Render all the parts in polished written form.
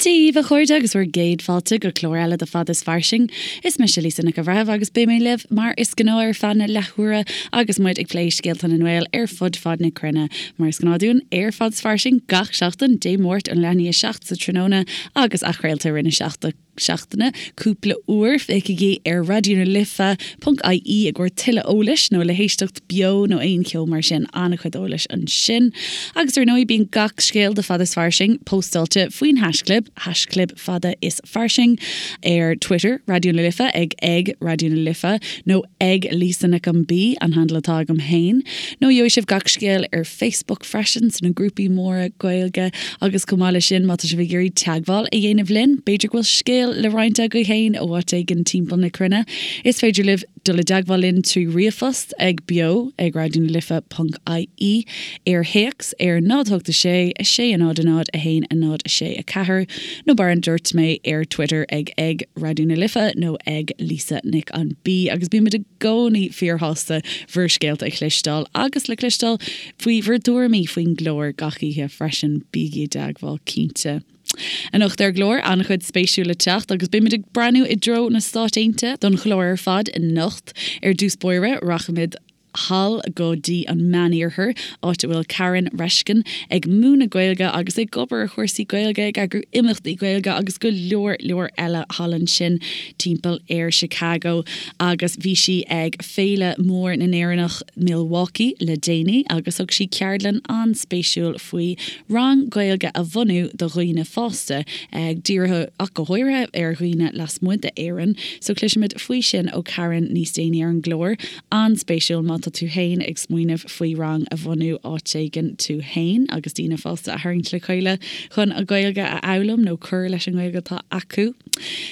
Dia dhaoibh a chairde agus bhur gcéad fáilte go clár eile de Fada is Fairsing. Is mise Lisa Nic an Bhreithimh agus beidh mé libh mar is gnáth ar feadh na leathuaire agus muid ag plé scéalta na nGael ar fud fad na cruinne. Mar is gnáth dúinn ar Fada is Fairsing gach seachtain, Dé Máirt ón leath i ndiaidh a 7 sa tráthnóna agus athchraolta i rith na seachtaine cúpla uair. Féachaigí ar Raidió na Life ponc ie i gcomhair tuilleadh eolais nó le héisteacht beo nó aon cheo mar sin, an-chuid eolais ansin. Agus ar ndóigh bíonn gach scéal de Fada is Fairsing póstáilte faoin haischlib, haischlib Fada is Fairsing, ar Twitter, Raidió na Life, ag ag Raidió na Life, nó ag Lisa Nic an B, an handle atá agam féin. Nó gheobhaidh sibh gach scéal ar Facebook freisin, sna grúpaí móra Gaeilge. Agus chomh maith leis sin, má tá sibh ag iarraidh teagmháil a dhéanamh linn, b'fhéidir go bhfuil scéal le roinnt agaibh féin ó áit éigin timpeall na cruinne, is féidir libh dul i dteagmháil linn trí ríomhphost ag beo ag raidionalife ponc ie, ar théacs ar 0 8 6 6 0 0 1 0 6 4 nó mar a dúirt mé ar Twitter ag ag Raidió na Life nó ag Lisa Nic an B agus bímid i gcónaí fíorshásta bhur scéalta a chloisteáil agus le cloisteáil faoi bhur dtuairimí faoin gclár gach oíche freisin. Bígí i dteagmháil cinnte. Anocht ar an gclár, an-chuid spéisiúil le teacht agus beimid ag breathnú i dtreo na Stáit Aontaithe don chlár ar fad anocht. Ar dtús báire, rachaimid thall go dtí an Meániarthar, áit a bhfuil Karen Reshkin ag múineadh Gaeilge agus ag obair ar chúrsaí Gaeilge, ag eagrú imeachtaí Gaeilge agus go leor leor eile thall ansin timpeall ar Chicago. Agus bhí sí ag Féile Mór na nÉireannach Milwaukee le déanaí agus thug sí ceardlann an-spéisiúil faoi rang Gaeilge a bhunú do dhaoine fásta, dírithe ach go háirithe ar dhaoine lasmuigh d'Éirinn. So cloisfimid faoi sin ó Karen níos déanaí ar an gclár. An-spéisiúil má tá tú fhéin ag smaoineamh faoi rang a bhunú áit éigin tú fhéin agus daoine fásta a tharraingt le chéile chun an Ghaeilge a fhoghlaim nó cur leis an nGaeilge atá acu.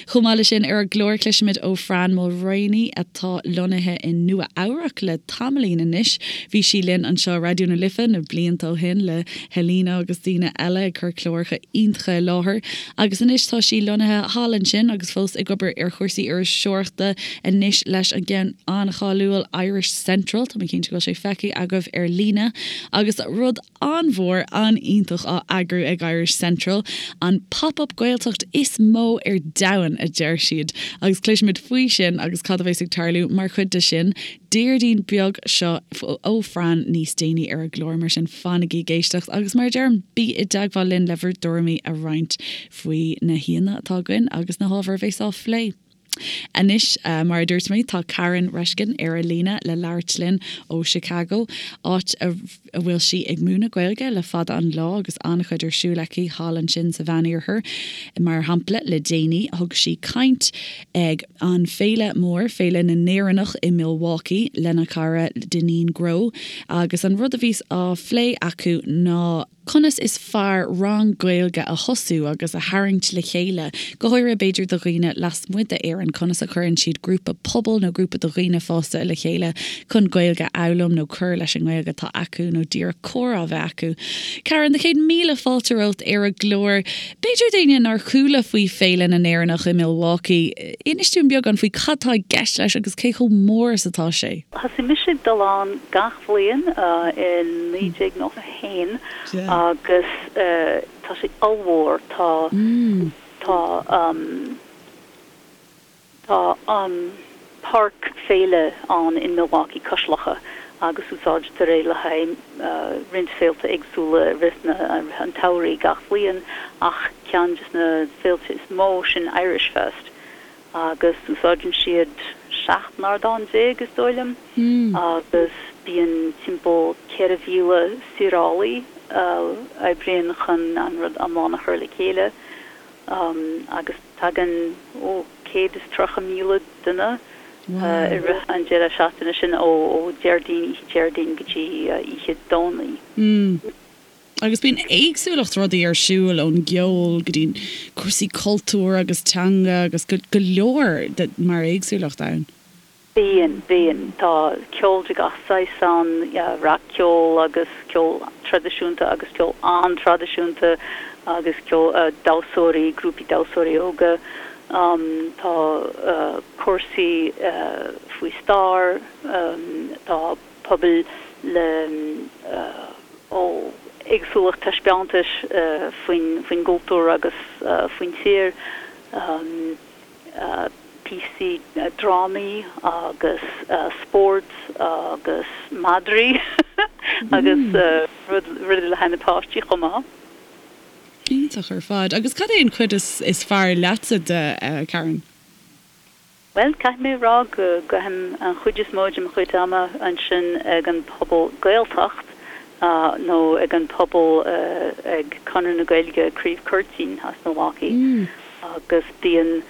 Chomh maith leis sin ar an gclár cloisfimid ó Fran Mulraney atá lonnaithe i Nua Eabhrac le tamaillín anois. Bhí sí linn anseo i Raidió na Life na blianta ó shin le Helena agus daoine eile ag cur cláracha iontacha i láthair agus anois tá sí lonnaithe thall ansin agus fós ag obair ar chúrsaí iriseoireachta anois leis an gceann an-cháiliúil Irish Central. Tá mé cinnte go bhfuil sé feicthe agaibh ar líne agus rud an-mhór, an-iontach á eagrú ag Irish Central, an Pop Up Gaeltacht is mó ar domhan, a deir siad, agus cloisfimid faoi sin agus cad a bheas ag tarlú mar chuid de sin Déardaoin beag seo ó Fran níos déanaí ar an gclár, mar sin fanaigí ag éisteacht agus mar a deirim, bí i dteagmháil linn le bhur dtuairimí a roinnt faoi na haíonna atá againn agus na hábhair a bheas á phlé. Anois, mar a dúirt mé, tá Karen Reshkin ar an líne le labhairt linn ó Chicago, áit a bhfuil sí ag múineadh Gaeilge le fada an lá agus an-chuid ar siúl aici thall ansin sa Mheánoirthear. Mar shampla, le déanaí, thug sí caint ag an féile mór, Féile na nÉireannach i Milwaukee, lena cara Dineen Grow agus an rud a bhí á phlé acu ná, Conas is fearr rang Gaeilge a thosú agus a tharraingt le chéile, go háirithe b'fhéidir do dhaoine lasmuigh d'Éirinn? Conas a chuireann siad grúpa pobail nó grúpa de dhaoine fásta le chéile chun Gaeilge a fhoghlaim nó cur leis an nGaeilge atá acu nó díreach comhrá a bheith acu? Karen, do chéad míle fáilte romhat ar an gclár. B'fhéidir d'éinne nár chuala faoi Féile na nÉireannach i Milwaukee, inis dúinn beagán faoi cad tá i gceist leis agus cé chomh mór is atá sé. Thosaigh mise ag dul ann gach bhliain i 1991 agus tá sé ollmhór. Tá, tá, tá an páirc féile ann in Milwaukee cois locha agus úsáidtear é le haghaidh roinnt féilte éagsúla i rith na, rith an tsamhraidh gach bhliain ach ceann des na féilte is mó sin Irish Fest. agus úsáideann siad 17 n-ardán, is dóigh liom, agus bíonn timpeall 4,000 saorálaí a oibríonn chun an rud iomlán a chur le chéile, agus tagann, ó, 130,000 duine i rith an deireadh seachtaine sin, ó Déardaoin, oíche Déardaoin go dtí oíche Domhnaigh. Agus bíonn éagsúlacht rudaí ar siúl, ón gceol go dtí cúrsaí cultúir agus teanga agus go leor de mar éagsúlacht ann. Bíonn, bíonn. Tá ceol de gach saghas ann, rac-cheol agus ceol traidisiúnta agus ceol an-traidisiúnta agus ceol, damhsóirí, grúpaí damhsóirí óga. Tá cúrsaí faoi stair, tá pobail le ó. éagsúlacht taispeántais faoin gcultúr agus faoin tír, píosaí drámaí agus spórt agus madraí agus rudaí le haghaidh na páistí chomh maith. Iontach ar fad. Agus cad é an chuid is fearr leatsa de, Karen? Bhuel, caithfidh mé a rá go gcaithim an chuid is mó de mo chuid ama ansin ag an Phuball Gaeltacht nó ag an Phuball ag Conradh na Gaeilge Craobh Curtin as Milwaukee agus bíonn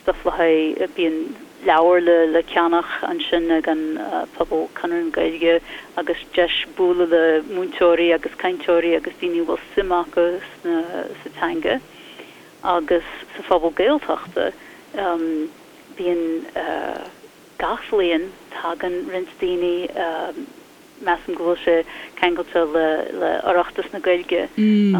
stuff le haghaidh, bíonn leabhair le ceannach ansin ag an Phuball Conradh na Gaeilge agus deis bualadh le múinteoirí agus cainteoirí agus daoine a bhfuil suim acu sa teanga. Agus sa Phuball Gaeltachta, bíonn gach bhliain, tagann roinnt daoine, measaim go bhfuil sé ceangailte le Oireachtas na Gaeilge,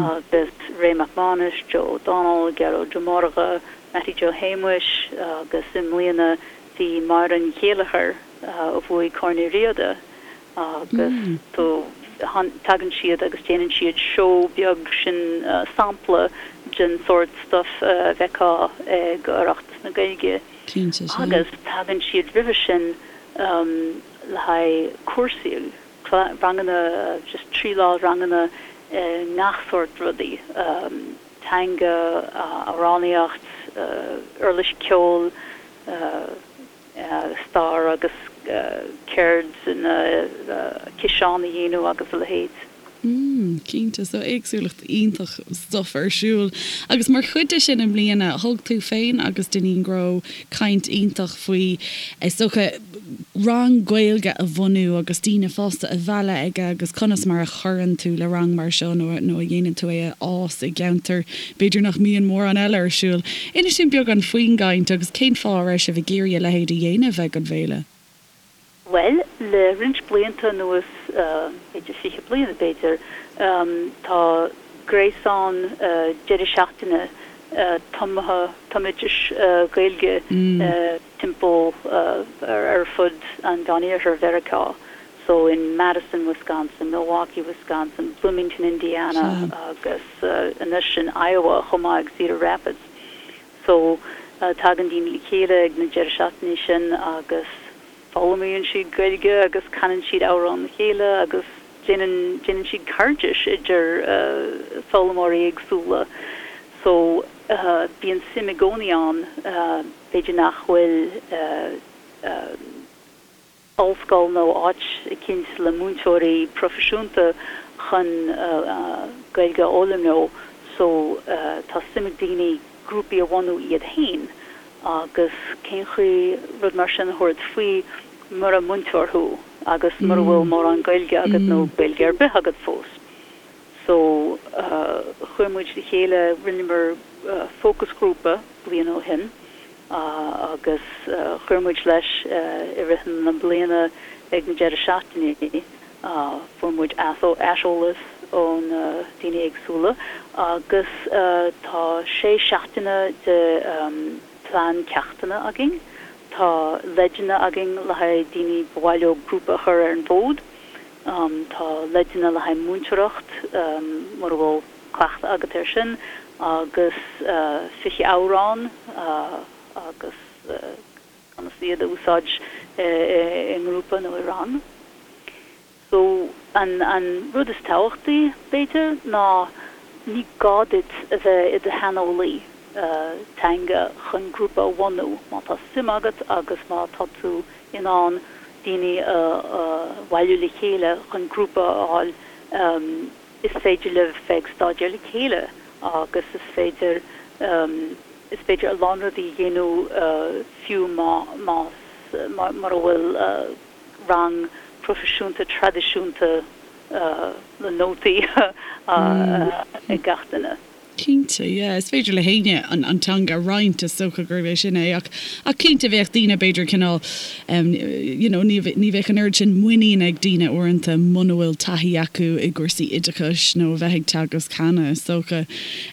agus Ray Mac Mánais, Joe O'Donnell, Gearóid Ó Mordha, Mattie Joe Shéamuis agus i mbliana bhí Máire Ní Chéilleachair a bhuaigh Corn Uí Riada agus so tagann siad agus déanann siad seó beag sin sampla den sórt stuff a bhfeicfeá ag Oireachtas na Gaeilge agus tagann siad roimhe sin le haghaidh cúrsaí, ranganna, just 3 lá ranganna i ngach sórt rudaí, teanga, amhránaíocht, uirlis ceoil, stair agus ceird na ciseán a dhéanamh agus a leithéid. Mm, cinnte, so éagsúlacht iontach stuff ar siúl. Agus mar chuid de sin i mbliana, thug tú féin agus Dineen Grow caint iontach faoi, is dócha, rang Gaeilge a bhunú agus daoine fásta a mhealladh aige agus conas mar a chuireann tú le rang mar seo nó nó a dhéanann tú é a fhás i gceantar B'fhéidir nach mbíonn mórán eile ar siúl. Inis dúinn beagán faoin gcaint agus cén fáth a raibh sibh ag iarraidh a leithéid a dhéanamh ag an bhféile? Bhuel, le roinnt blianta anuas, b'fhéidir 20 bliain b'fhéidir, tá gréasán deireadh seachtaine tumtha, tumoideachais Gaeilge timpeall ar fud an Mheániarthair Mheiriceá. So in Madison, Wisconsin, Milwaukee, Wisconsin, Bloomington, Indiana agus anois in Iowa chomh maith ag Cedar Rapids. So tagann daoine le chéile ag na deireadh seachtainí sin agus foghlaimíonn siad Gaeilge agus canann siad amhráin le chéile agus déanann déanann siad cairdis idir foghlaimeoirí éagsúla. So bíonn suim i gcónaí ann, b'fhéidir nach bhfuil ollscoil nó áit eicínt le múinteoirí proifisiúnta chun Gaeilge a fhoghlaim leo so tá suim ag daoine grúpaí a bhunú iad féin agus cén chaoi rud mar sin a thabhairt faoi mura múinteoir thú agus mura bhfuil mórán Gaeilge agat nó Gaeilge ar bith agat fós. So chuir muid le chéile, rinneamar fócasghrúpa bliain ó shin agus chuir muid leis i rith na bliana ag na deireadh seachtainí. Fuair muid aiseolas ó na daoine éagsúla agus tá sé seachtaine de plean ceachtanna againn. Tá leideanna againn le haghaidh daoine ba mhaith leo grúpa a chur ar an bhfód. Tá leideanna le haghaidh múinteoireacht mura bhfuil cleachtadh agat air sin agus 20 amhrán agus conas iad a úsáid i ngrúpa nó i rang. So an an rud is tábhachtaí, b'fhéidir, ná ní gá duit a bheith i do shaineolaí teanga chun grúpa a bhunú. Má tá suim agat agus má tá tú in ann daoine a bhailiú le chéile chun grúpa a fháil, is féidir libh bheith ag staidéar le chéile agus is féidir is féidir a lán rudaí a dhéanamh fiú má más mura bhfuil rang proifisiúnta traidisiúnta le nótaí ag gach duine. Cinnte, yeah. Is féidir le héinne an teanga a roinnt, is dócha gurb é sin é. Ach, ach cinnte bheadh daoine b'fhéidir cineál em you know ní ní bheadh an oiread sin muinín ag daoine uaireanta muna bhfuil taithí acu i gcúrsaí oideachais nó a bheith ag teagasc cheana, is dócha.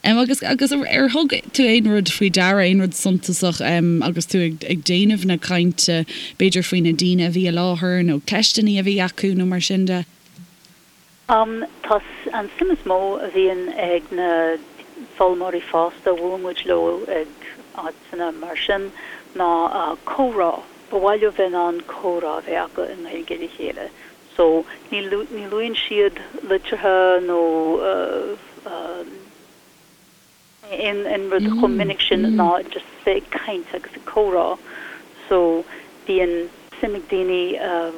Em agus agus ar thug tú aon rud faoi deara, aon rud suntasach em agus tú ag ag déanamh na cainte, b'fhéidir faoi na daoine a bhí i láthair nó ceisteanna a bhí acu nó mar sin de? Tá an suim is mó a bhíonn ag na foghlaimeoirí fásta a bhuaileann muid leo ag áiteanna mar sin ná comhrá. Ba mhaith leo bheith in ann comhrá a bheith acu i nGaeilge le chéile. So ní ní luann siad litreacha nó aon rud chomh minic sin ná just bheith ag caint agus ag comhrá so bíonn suim ag daoine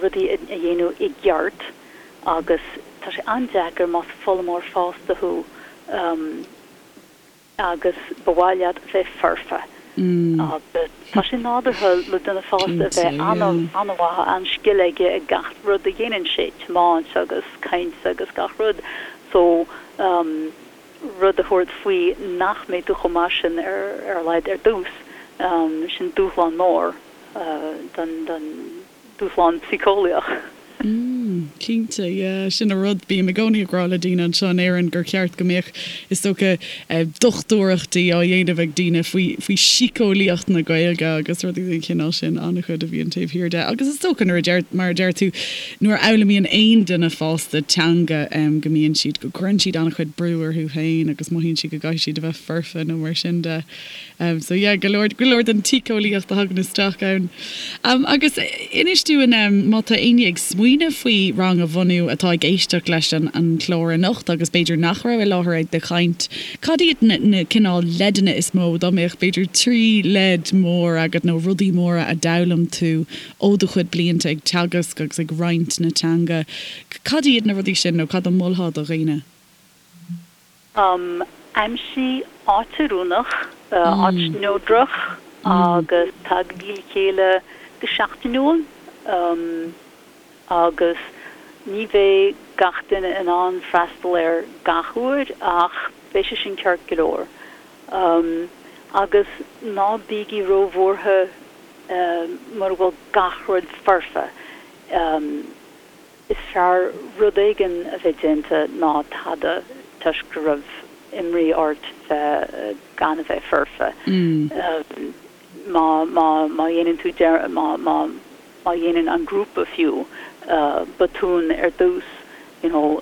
rudaí a dhéanamh i gceart agus tá sé an-deacair más foghlaimeoir fásta thú agus ba mhaith leat bheith foirfe agus tá sé nádúrtha le duine fásta a bheith an-mhaith, an-scil aige ag gach rud a dhéanann sé, tiomáint agus caint agus gach rud so rud a thabhairt faoi nach mbeidh tú chomh maith sin ar a laghad ar dtús, sin dúshlán mór don, don, dúshlán síceolaíoch. Mm, cinnte, yeah, sin an rud. Bím i gcónaí ag rá le daoine anseo in Éirinn gur cheart go mbeadh, is dócha, dochtúireachtaí á dhéanamh ag daoine faoi, faoi síceolaíocht na Gaeilge agus rudaí den chineál sin, an-chuid a bhíonn taobh thiar de. Agus is dócha nuair a deir, mar a deir tú, Nuair a fhoghlaimíonn aon duine fásta teanga go mbíonn siad, go gcuireann siad an-chuid brú orthu féin agus mothaíonn siad go gcaithfidh siad a bheith foirfe nó mar sin de. So yeah, go leor, go leor den tsíceolaíocht a thagann isteach ann. Agus inis dúinn má tá éinne ag smaoineamh faoi rang a bhunú atá ag éisteacht leis an an chlár anocht agus b'fhéidir nach raibh i láthair ag do chaint, cad iad na na cineál leideanna is mó, dá mbeadh b'fhéidir 3 leid mór agat nó rudaí móra a d'fhoghlaim tú Ó do chuid blianta ag teagasc agus ag roinnt na teanga, cad iad na rudaí sin nó cad a mholfá do dhaoine? Aimsigh áit oiriúnach, áit neodrach agus tagaigí le chéile go seachtainiúil agus ní bheidh gach duine in ann freastal air gach uair ach beidh sé sin ceart go leor. Agus ná bígí róbhuartha mura bhfuil gach rud foirfe, is fearr rud éigin a bheith déanta ná tada toisc go raibh imní ort bheith gan a bheith foirfe. Má, má, má dhéanann tú, má, má, má dhéanann an grúpa fiú botún ar dtús, you know,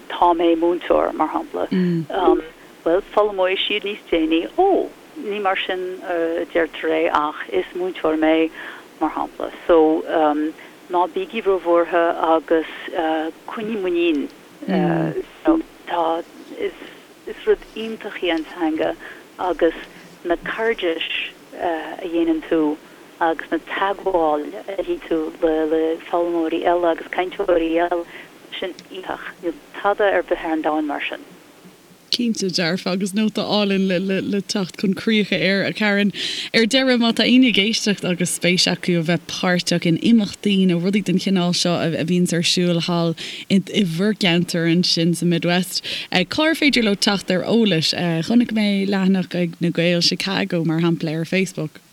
tá mé múinteoir, mar shampla, bhuel, foghlaimeoidh siad níos déanaí, ó, Ní mar sin a deirtear é ach is múinteoir mé, mar shampla. So, ná bígí róbhuartha agus coinnigh muinín. You know, tá, is, is rud iontach í an teanga agus na cairdis a dhéanann tú agus na teagmháil a dhéanann tú le, le foghlaimeoirí eile agus cainteoirí eile, sin iontach. Níl tada ar bith ar an domhan mar sin. Cinnte dearfa, agus nóta álainn le teacht chun críche air, a Karen. Ar deireadh, má tá éinne ag éisteacht agus spéis acu a bheith páirteach in imeachtaí nó rudaí den chineál seo a bhíonns ar siúl thall i bhur gceantar ansin sa Midwest, cár féidir leo teacht ar eolas? Chonaic mé leathanach ag Na Gaeil Chicago, mar shampla, ar Facebook.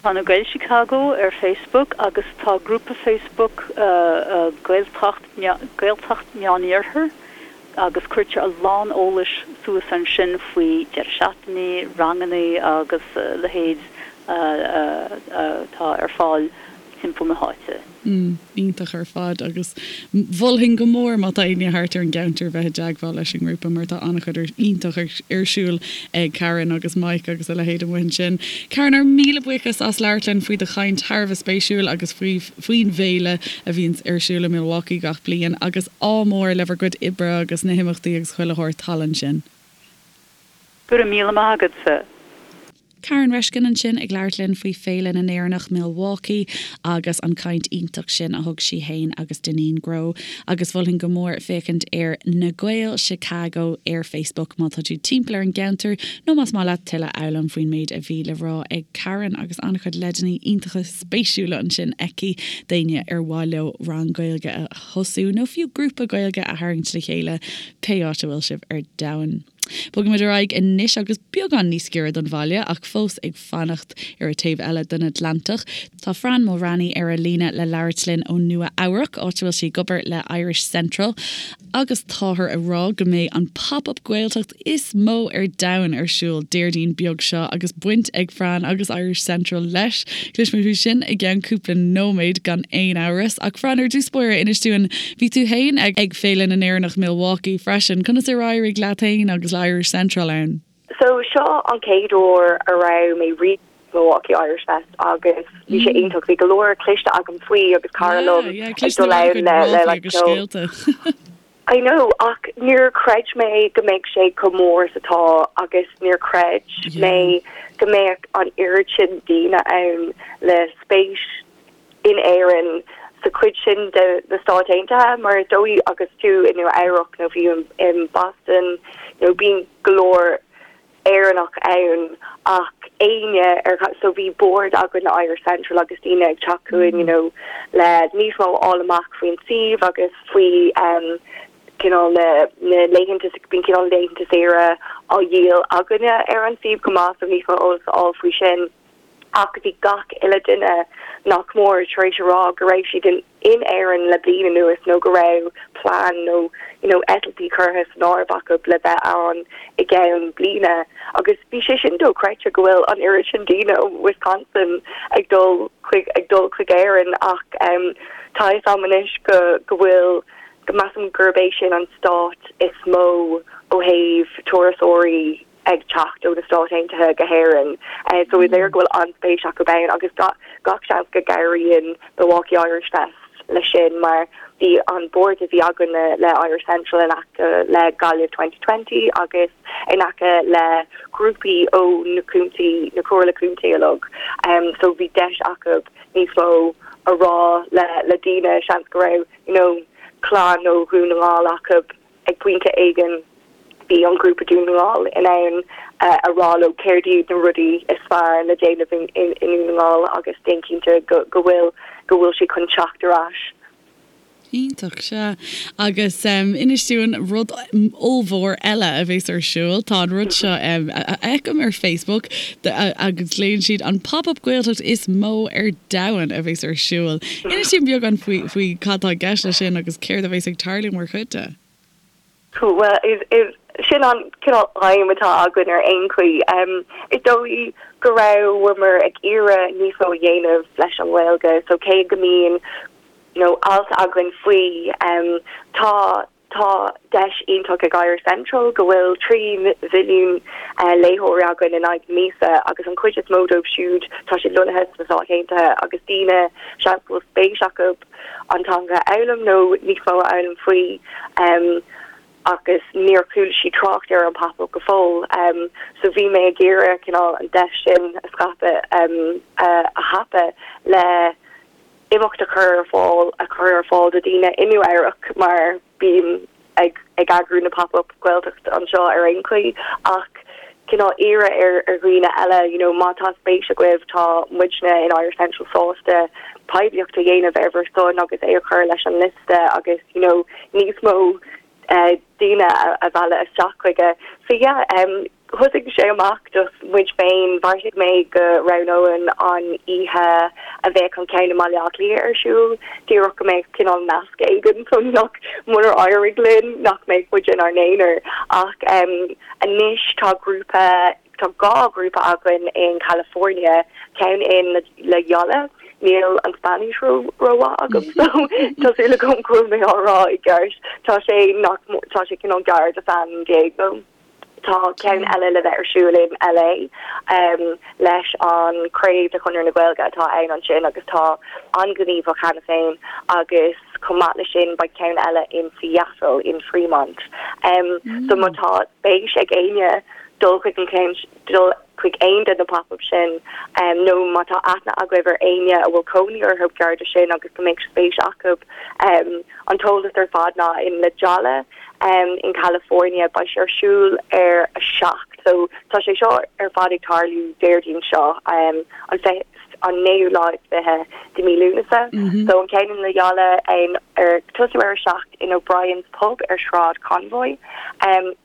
Tá Na Gaeil Chicago ar Facebook agus tá grúpa Facebook Gaeltacht Gaeltacht Meániarthar agus cuirtear a lán eolais suas ansin faoi deireadh seachtainí, ranganna agus a leithéid atá ar fáil timpeall na háite. Mm, iontach ar fad agus mholfainn go mór má tá éinne thart ar an gceantar bheith i dteagmháil leis an ngrúpa mar tá an-chuid iontach ar siúl ag Karen agus Mike agus a leithéid amuigh ansin. Karen, ár míle buíochas as labhairt linn faoi do chaint thar a bheith spéisiúil agus faoi faoin bhféile a bhíonns ar siúl i Milwaukee gach bliain agus ádh mór le bhur gcuid oibre agus na himeachtaí agus chuile shórt thall ansin. Go raibh míle maith agatsa. Karen Reshkin ansin ag labhairt linn faoi Féile na nÉireannach Milwaukee agus an caint iontach sin a thug sí fhéin agus Dineen Grow. Agus mholfainn go mór féachaint ar Na Gaeil Chicago ar Facebook má tá tú timpeall ar an gceantar nó más maith leat tuilleadh a fhoghlaim faoin méid a bhí le rá ag Karen agus an-chuid leideanna iontacha spéisiúla ansin aici d'éinne ar mhaith leo rang Gaeilge a thosú nó fiú grúpa Gaeilge a tharraingt le chéile pé áit a bhfuil sibh ar domhan. Bogfaimid ar aghaidh anois agus beagán níos giorra don bhaile ach fós ag fanacht ar an taobh eile den Atlantach. Tá Fran Mulraney ar an líne le labhairt linn ó Nua Eabhrac, áit a bhfuil sí ag obair le Irish Central. Agus táthar ag rá go mbeidh an Pop Up Gaeltacht is mó ar domhan ar siúl Déardaoin beag seo agus baint ag Fran agus Irish Central leis. Cloisfimid faoi sin i gceann cúpla nóiméad gan aon amhras. Ach Fran, ar dtús báire, inis dúinn, bhí tú fhéin ag Féile na nÉireannach Milwaukee freisin. Conas ar éirigh leat fhéin agus le Irish Central ann? So seo an chéad uair a raibh mé riamh Milwaukee Irish Fest agus bhí sé iontach. Bhí go leor cloiste agam faoi agus cara liom ag dul ann le le like ceol. I know ach níor chreid mé go mbeadh sé chomh mór is atá agus níor chreid mé go mbeadh an oiread sin daoine ann le spéis in Éirinn sa chuid sin de na Stáit Aontaithe mar is dóigh agus tú i Nua Eabhrac nó fiú in Boston nó bíonn go leor Éireannach ann ach éinne ar so bhí bord againn le Irish Central agus daoine ag teacht chugainn you know le níos mó a fháil amach faoin suíomh agus faoi um cineál na na laethanta bíonn cineál laethanta saoire á dhíol againne ar an suíomh chomh maith so níos mó eolas a fháil faoi sin. Ach bhí gach uile duine nach mór tar éis a rá go raibh siad in in Éirinn le bliain anuas nó go raibh plean nó you know eitiltí curtha san áireamh acu le bheith ann i gceann bliana agus bhí sé sin dochreidte go bhfuil an oiread sin daoine ó Wisconsin ag dul chuig ag dul chuig Éirinn ach um tá a fhios agam anois go go bhfuil go measaim gurb é sin an stát is mó ó thaobh turasóirí ag teacht ó na Stáit Aontaithe go hÉirinn. So is léir go bhfuil an-spéis acu ann agus gach seans go gcabhraíonn Milwaukee Irish Fest leis sin mar bhí an bord a bhí againn le Irish Central in aice le Gaillimh 2020 agus in aice le grúpaí ó na contae, na comhairle contae uilig. So bhí deis acu níos mó a rá le le daoine, seans go raibh you know clann ó Dhún na nGall acu Ag pointe éigin bhí an grúpa Dún na nGall in ann a rá leo céard iad na rudaí is fearr le déanamh i nDún na nGall agus déan cinnte go bhfuil go bhfuil siad chun teacht ar ais. Iontach, sea. Agus inis dúinn rud ollmhór eile a bhéas ar siúl. Tá an rud seo a fheicim ar Facebook agus glaonn siad an Pop Up Gaeltacht is mó ar domhan a bhéas ar siúl. Inis dúinn beagán faoi faoi cad tá i gceist leis sin agus céard a bhéas ag tarlú mar chuid de. Bhuel, is sin an cineál aidhm atá againn ar aon chaoi. Is dóigh go rabhamar ag iarraidh níos mó a dhéanamh leis an nGaeilge so cé go mbíonn you know alt againn faoi, tá Tá deis iontach ag Irish Central go bhfuil 3 mhilliún léitheoirí againn in aghaidh na míosa agus an chuid is mó dóibh siúd tá siad lonnaithe sna Stáit Aontaithe agus daoine seans go bhfuil spéis acu an teanga a fhoghlaim nó níos mó a fhoghlaim faoi agus níor chuala siad trácht ar an Pop Up go fóill. So bhí mé ag iarraidh cineál an deis sin a scaipeadh a thapadh le imeacht a chur ar fáil a chur ar fáil do daoine i Nua Eabhrac mar bím ag ag eagrú na Pop Up Gaeltacht anseo ar aon chaoi ach cineál iarraidh ar ar dhaoine eile you know má tá spéis agaibh tá muidne in Irish Central sásta poiblíocht a dhéanamh ar bhur son agus é a chur leis an liosta agus you know níos mó daoine a mhealladh isteach chuige. So yeah, thosaigh sé amach just muid féin, bheartaigh mé go roghnóinn an oíche a bheadh an ceann i mBaile Átha Cliath ar siúl, díreach go mbeadh cineál nasc éigin so nach, munar éirigh linn, nach mbeadh muid inár n-aonar. Ach anois tá grúpa, Tá 2 ghrúpa againn in California, ceann in La Jolla, níl an Spáinnis rómhaith agam so tá súil agam go bhfuil mé á rá i gceart, tá sé nach tá sé cineál gar do San Diego. Tá ceann eile le bheith ar siúl in LA leis an craobh de Chonradh na Gaeilge atá ann ansin agus tá an-ghníomhach cheana féin agus chomh maith leis sin beidh ceann eile in Seattle, in Fremont. So má tá spéis ag éinne dul chuig an ceann, dul chuig aon de na pop-ups sin nó má tá aithne agaibh ar éinne a bhfuil cónaí orthu gar do sin agus go mbeadh spéis acu an t-eolas ar fad ná in La Jolla in California. Beidh sé ar siúl ar 7. So tá sé seo ar fad ag tarlú Déardaoin seo, an an naoú lá is 20 de mí Lúnasa. So an ceann in Loyola ar tosú ar a 7 in O'Brien's Pub ar Sráid Convoy.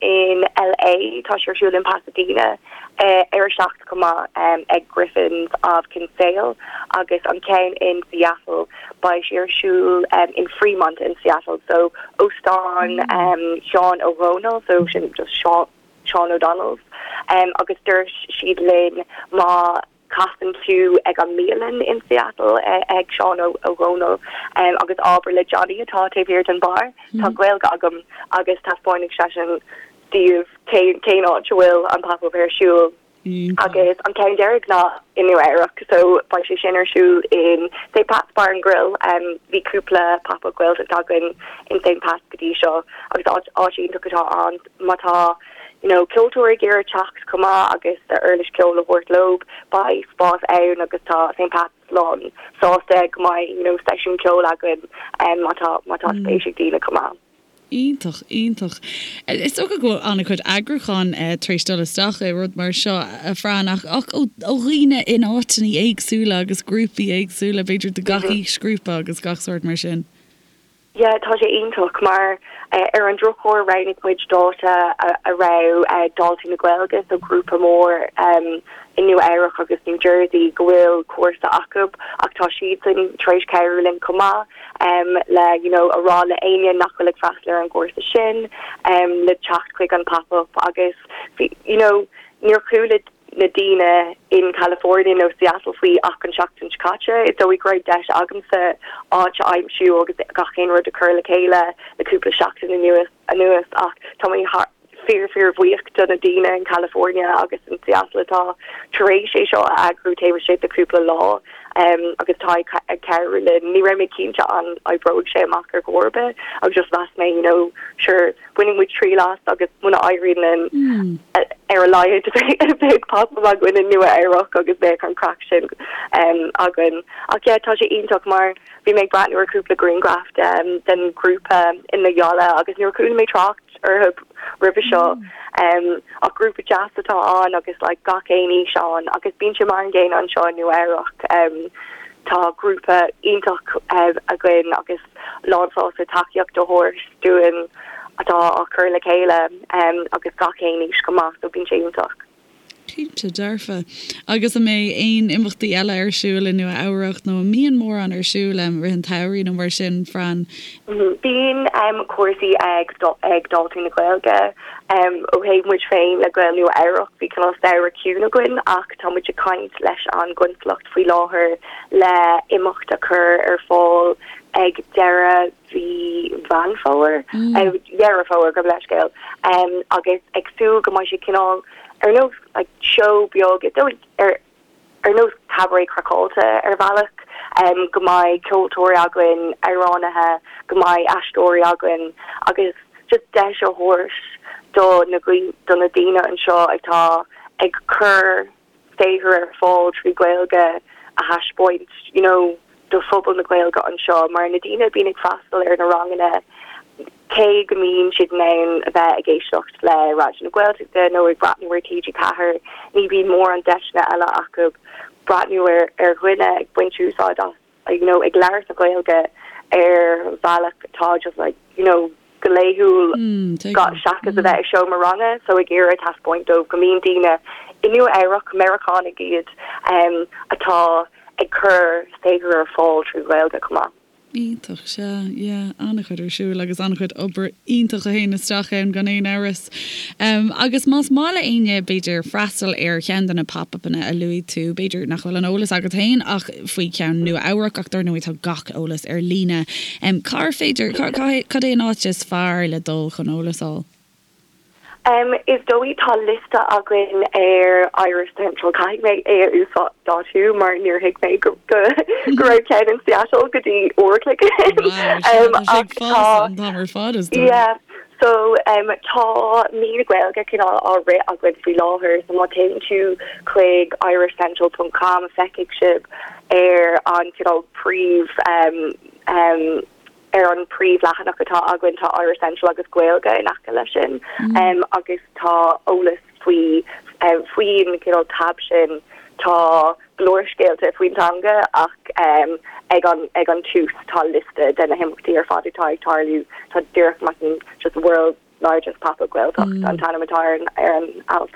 In LA tá sé ar siúl in Pasadena ar a 7 chomh maith ag Griffin's of Kinsale agus an ceann in Seattle beidh sé ar siúl in Fremont in Seattle so óstán Sheáin Ó Dhónaill so sin just Seán Seán O'Donnell's agus dúirt siad linn má casann tú ag an mbialann in Seattle ag Seán Ó Dhónaill agus abair le Johnny atá taobh thiar den bar tá Gaeilge agam agus taispeánfaidh seisean daoibh cén áit a bhfuil an pop-up ar siúl. Agus an ceann deiridh ná i Nua Eabhrac so beidh sé sin ar siúl in St Pat's Bar and Grill. Bhí cúpla pop-up Gaeltacht againn in St Pat's go dtí seo agus áit áit iontach atá ann má tá you know ceoltóir ag iarraidh teacht chomh maith agus a uirlis ceoil a thabhairt leo beidh spás ann agus tá St Pat's lán sásta go mbeidh you know seisiún ceoil againn má tá má tá spéis ag daoine chomh maith. Iontach, iontach. Is dócha go bhfuil an-chuid eagrúcháin tar éis dul isteach i rud mar seo, a Fran, ach ach ó dhaoine in áiteanna éagsúla agus grúpaí éagsúla, b'fhéidir de gach aoisghrúpa agus gach sórt mar sin. Yeah, tá sé iontach mar ar an drochuair roghnaigh muid dáta a raibh Daltaí na Gaeilge, so grúpa mór i Nua Eabhrac agus New Jersey go bhfuil cúrsa acu ach tá siadsan tar éis cabhrú linn chomh maith. le you know a rá le éinne nach bhfuil ag freastal ar an gcúrsa sin le teacht chuig an pop-up agus bhí you know níor chuala na daoine in California nó Seattle faoi ach an tseachtain seo caite. Is dóigh go raibh deis agamsa áit a aimsiú agus gach aon rud a chur le chéile le cúpla seachtain anuas anuas ach tá mé thar fíor fíor bhuíoch do na daoine in California agus in Seattle atá tar éis é seo a eagrú taobh istigh de cúpla lá agus atá ag cabhrú linn. Ní raibh mé cinnte an oibreoidh sé amach ar chor ar bith agus just mheas mé you know sure bainfidh muid triail as agus muna éiríonn linn ar a laghad beidh pop-up againn i Nua Eabhrac agus beidh an craic sin againn. Ach yeah tá sé iontach mar bhí mé ag breathnú ar cúpla grianghraf den ghrúpa in Loyola agus níor chuala mé trácht orthu roimhe seo ach grúpa deas atá ann agus like gach aon aois ann agus bíonn sé mar an gcéanna anseo i Nua Eabhrac. Tá grúpa iontach againn agus lán sásta tacaíocht a thabhairt dúinn atá á cur le chéile agus gach aon aois chomh maith so bíonn sé iontach. Cinnte dearfa. Agus an mbeidh aon imeachtaí eile ar siúl i Nua Eabhrac nó an mbíonn mórán ar siúl i rith an tsamhraidh nó mar sin, Fran? Bíonn cúrsaí ag ag Daltaí na Gaeilge. Ó thaobh muid féin le Gaeil Nua Eabhrac bhí cineál samhradh ciúin againn ach tá muid ag caint leis an gconsalacht faoi láthair le imeacht a chur ar fáil ag deireadh mhí Mheán Fómhair, Dheireadh Fómhair, gabh mo leithscéal, agus ag súil go mbeidh sé cineál ar nós like seó beag, is dóigh ar ar nós cabaret craiceáilte ar bhealach, go mbeidh ceoltóirí againn, amhránaithe, go mbeidh aisteoirí againn agus just deis a thabhairt do na do na daoine anseo atá ag cur saothar ar fáil trí Ghaeilge a thaispeáint you know do phobal na Gaeilge anseo mar na daoine a bhíonn ag freastal ar na ranganna cé go mbíonn siad in ann a bheith ag éisteacht le Raidió na Gaeltachta nó ag breathnú ar TG4 ní bhíonn mórán deiseanna eile acu breathnú ar ar dhuine ag baint úsáid as you know, ag labhairt na Gaeilge ar bhealach atá just like, you know, go laethúil seachas a bheith i seomra ranga, so ag iarraidh taispeáint dóibh go mbíonn daoine i Nua Eabhrac, Meiriceánaigh iad, atá ag cur saothar ar fáil trí Ghaeilge chomh maith. Iontach, sea, yeah, an-chuid ar siúl agus an-chuid obair iontach a théann isteach ann gan aon amhras. Agus más maith le éinne, b'fhéidir, freastal ar cheann de na pop-upanna a luaigh tú, b'fhéidir nach bhfuil an eolas agat féin ach faoi cheann Nua Eabhrac ach dar ndóigh tá gach eolas ar líne. Cár féidir, cad é an áit is fearr le dul chun eolas a fháil? Is dóigh tá liosta againn ar Irish Central, caithfidh mé é a uasdátú mar níor thuig mé go raibh ceann in Seattle go dtí uair a chloig ó shin. Wow, sea, tá sé ag fás an t-am ar fad is dóigh. Yeah. So tá mí na Gaeilge cineál á rith againn faoi láthair so má théann tú chuig irishcentral ponc com feicfidh sibh ar an cineál príomh ar an príomhleathanach atá againn tá Irish Central agus Gaeilge in aice leis sin agus tá eolas. Faoi faoin cineál tab sin tá go leor scéalta faoin teanga ach ag an ag an tús tá liosta de na himeachtaí ar fad atá ag tarlú. Tá díreach measaim just World's Largest Pop-Up Gaeltacht an t-ainm atá ar an ar an alt.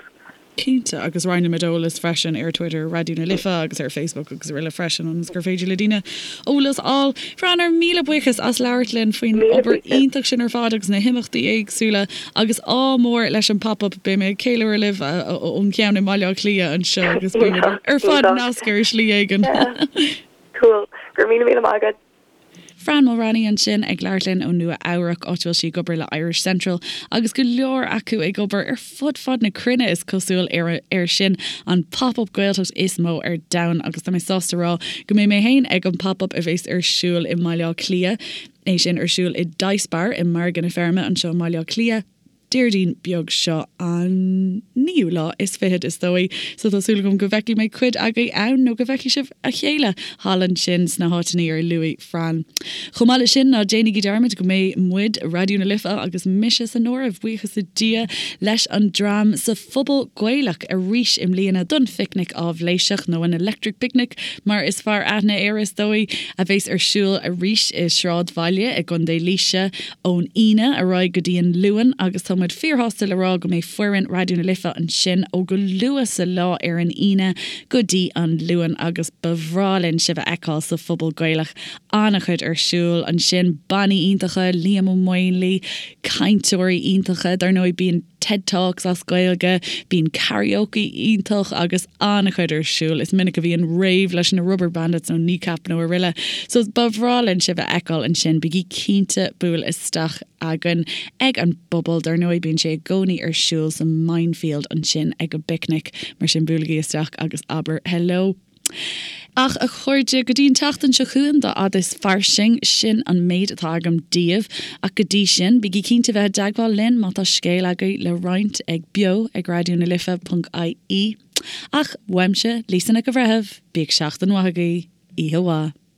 Cinnte, agus roinnfimid eolas freisin ar Twitter, Raidió na Life agus ar Facebook agus araile freisin ionas gur féidir le daoine eolas a fháil. Fran, ár míle buíochas as labhairt linn faoin obair iontach sin ar fad agus na himeachtaí éagsúla agus ádh mór leis an Pop Up. Beidh mé ag ceiliúradh libh ón cheann i mBaile Átha Cliath anseo agus beimid ar fad nasctha ar shlí éigin. Cool. Go raibh míle míle maith agat. Fran Mulraney ansin ag labhairt linn ó Nua Eabhrac, áit a bhfuil sí ag obair le Irish Central agus go leor acu ag obair ar fud fad na cruinne is cosúil ar ar sin an Pop Up Gaeltacht is mó ar domhan agus tá mé sásta rá go mbeidh mé féin ag an Pop Up a bheas ar siúl i mBaile Átha Cliath, é sin ar siúl i Dice Bar i Margadh na Feirme anseo i mBaile Átha Cliath. Déardaoin beag seo, an naoú lá is fichead is dóigh, so tá súil agam go bhfeicfidh mé cuid agaibh ann nó go bhfeicfidh sibh a chéile thall ansin sna háiteanna ar luaigh Fran. Chomh maith leis sin, ná déanaigí dearmad go mbeidh muid, Raidió na Life agus mise san áireamh, buíochas le Dia, leis an dream sa Phuball Gaelach arís i mbliana don Phicnic Áibhléiseach, nó an Electric Picnic mar is fearr aithne air is dóigh, a bheas ar siúl arís i Sráidbhaile i gContae Laoise ón Aoine ar aghaidh go dtí an Luan agus tá muid fíorshásta le rá go mbeidh foireann Raidió na Life ansin ó go luath sa lá ar an Aoine go dtí an Luan agus ba bhreá linn sibh a fheiceáil sa Phuball Gaelach. An-chuid ar siúl ansin, bannaí iontacha, Liam Ó Maonlaí, cainteoirí iontacha, dar ndóigh bíonn TED Talks as Gaeilge, bíonn karaoke iontach agus an-chuid ar siúl. Is minic a bhíonn rave leis na Rubberbandits nó Kneecap nó araile. So ba bhreá linn sibh a fheiceáil ansin. Bígí cinnte buail isteach againn ag an bpuball. Dar ndóigh bíonn sé i gcónaí ar siúl sa Minefield ansin ag an bPicnic. Mar sin buailigí isteach agus abair hello. Ach, a chairde, go dtí an tseachtain seo chugainn, dá fhad is fairsing, sin an méid atá agam daoibh. Ach go dtí sin, bígí cinnte bheith i dteagmháil linn má tá scéal agaibh le roinnt ag beo ag raidió na life ponc ie. Ach, uaimse, Lisa Nic an Bhreithimh, bíodh seachtain mhaith agaibh. Oíche mhaith.